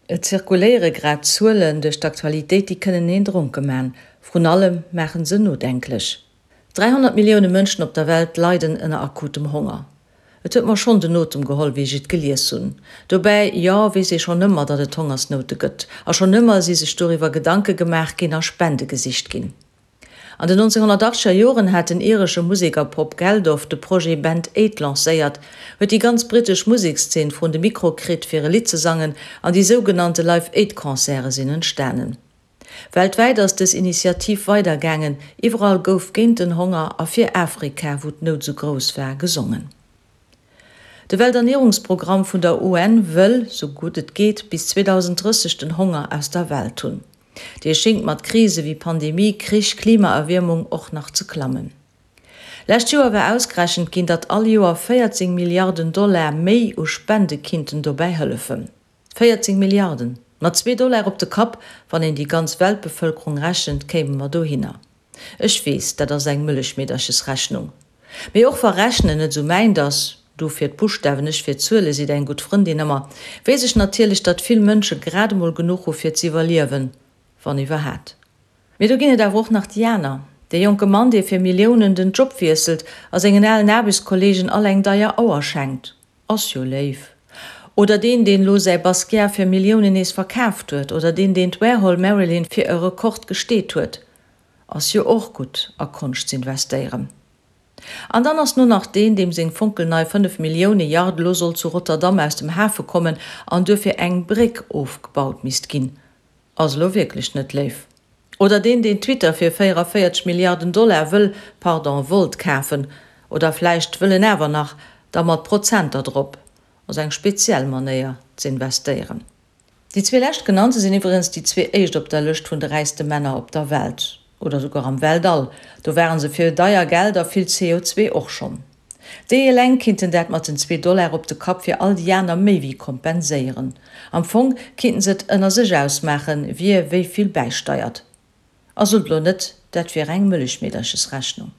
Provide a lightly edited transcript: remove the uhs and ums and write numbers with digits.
Et zirkuléiere grad Zuelen duerch d'Aktualitéit, déi kënnen een dronke man. Vrun allem maachen se nodenklech. 300 Millioune Mënschen op der Welt leiden ënner akutem Honger. Et huet mer schonn den Otem geholl, wéi ech et gelies hunn. Dobäi, jo, weess ee schonn ëmmer, datt et Hongersnoute gëtt. A schonn ëmmer si sech doriwwer Gedanke gemaach ginn a Spende gesicht ginn. An den 1980er Joren hat den iresche Museker Bob Geldof de Projet Band Aid lancéiert, huet déi ganz brittesch Musekszeen vrun de Mikro kritt fir e Lidd ze sangen an déi sougenannte Live Aid Concerte sinn entstanen. Weltwäit ass dës Initiativ weider gaangen, iwwerall gouf géint den Honger a fir Afrika, wou d'Nout sou grouss war, gesongen. De Welternierungsprogramm vun der UN wëll, sou gutt et geet, bis 2030 den Honger aus der Welt hunn. Dee schéngt mat Krise wéi Pandemie, Krich, Klimaerwiermung och nach ze klammen. Lescht Joer war ausgerechent ginn, datt all Joer 14 Milliarden Dollar méi u Spende kinnten dobäi hëllefen. 14 Milliarden! Mat zwee Dollar op de Kapp, wann een déi ganz Weltbevëlkerung rechent, kéime mer dohinner. Ech weess, dat ass eng Mëllechmeederchesrechnung. Mee och wa Rechnen net esou mäint ass, du fir d'Buschtawen, ech fir d'Zuele seet eng gutt Frëndin ëmmer, weess ech natierlech, datt vill Mënsche grad emol genuch hu fir z'iwwerliewen, wann iwwerhat. Mee do ginn et awer och nach déi aner, dee jonke Mann, dee fir Milliounen den Job wiesselt a sengen alen Aarbechtskollegen all eng deier Auer schenkt, ass jo léif. Oder deen, deen elo säi Basquiat fir Milliounen nees verkaaft huet, oder deen, deen d'Warhol Marilyn fir e Rekord gesteet huet. Ass jo och gutt a Konscht z'investéieren. An dann ass no nach deen, deem seng fonkelnei 5 Millioune Yacht elo soll zu Rotterdam aus dem Hafe kommen an duerfir eng Bréck ofgebaut misst ginn. Ass elo wierklech net léif. Oder deen, deen Twitter fir 44 Milliarden Dollar wëll, pardon, wollt kafen. Oder vläicht wëll en awer nach, da mat Prozenter drop. Ass eng speziell Manéier z'investéieren. Déi zwee leschtgenannte sinn iwwregens déi zwee éischt op der Lëscht vun de räichste Männer op der Welt, oder souguer am Weltall, do ware se fir deier Geld a vill CO2 och schonn. Déi eleng kinnten dat mat den zwee Dollar op de Kapp fir all déi aner méi wéi kompenséieren. Am Fong kinnten se et ënner sech ausmaachen, wie wéi vill bäisteiert. A sot elo net, dat wier eng Mëllechmeederchesrechnung.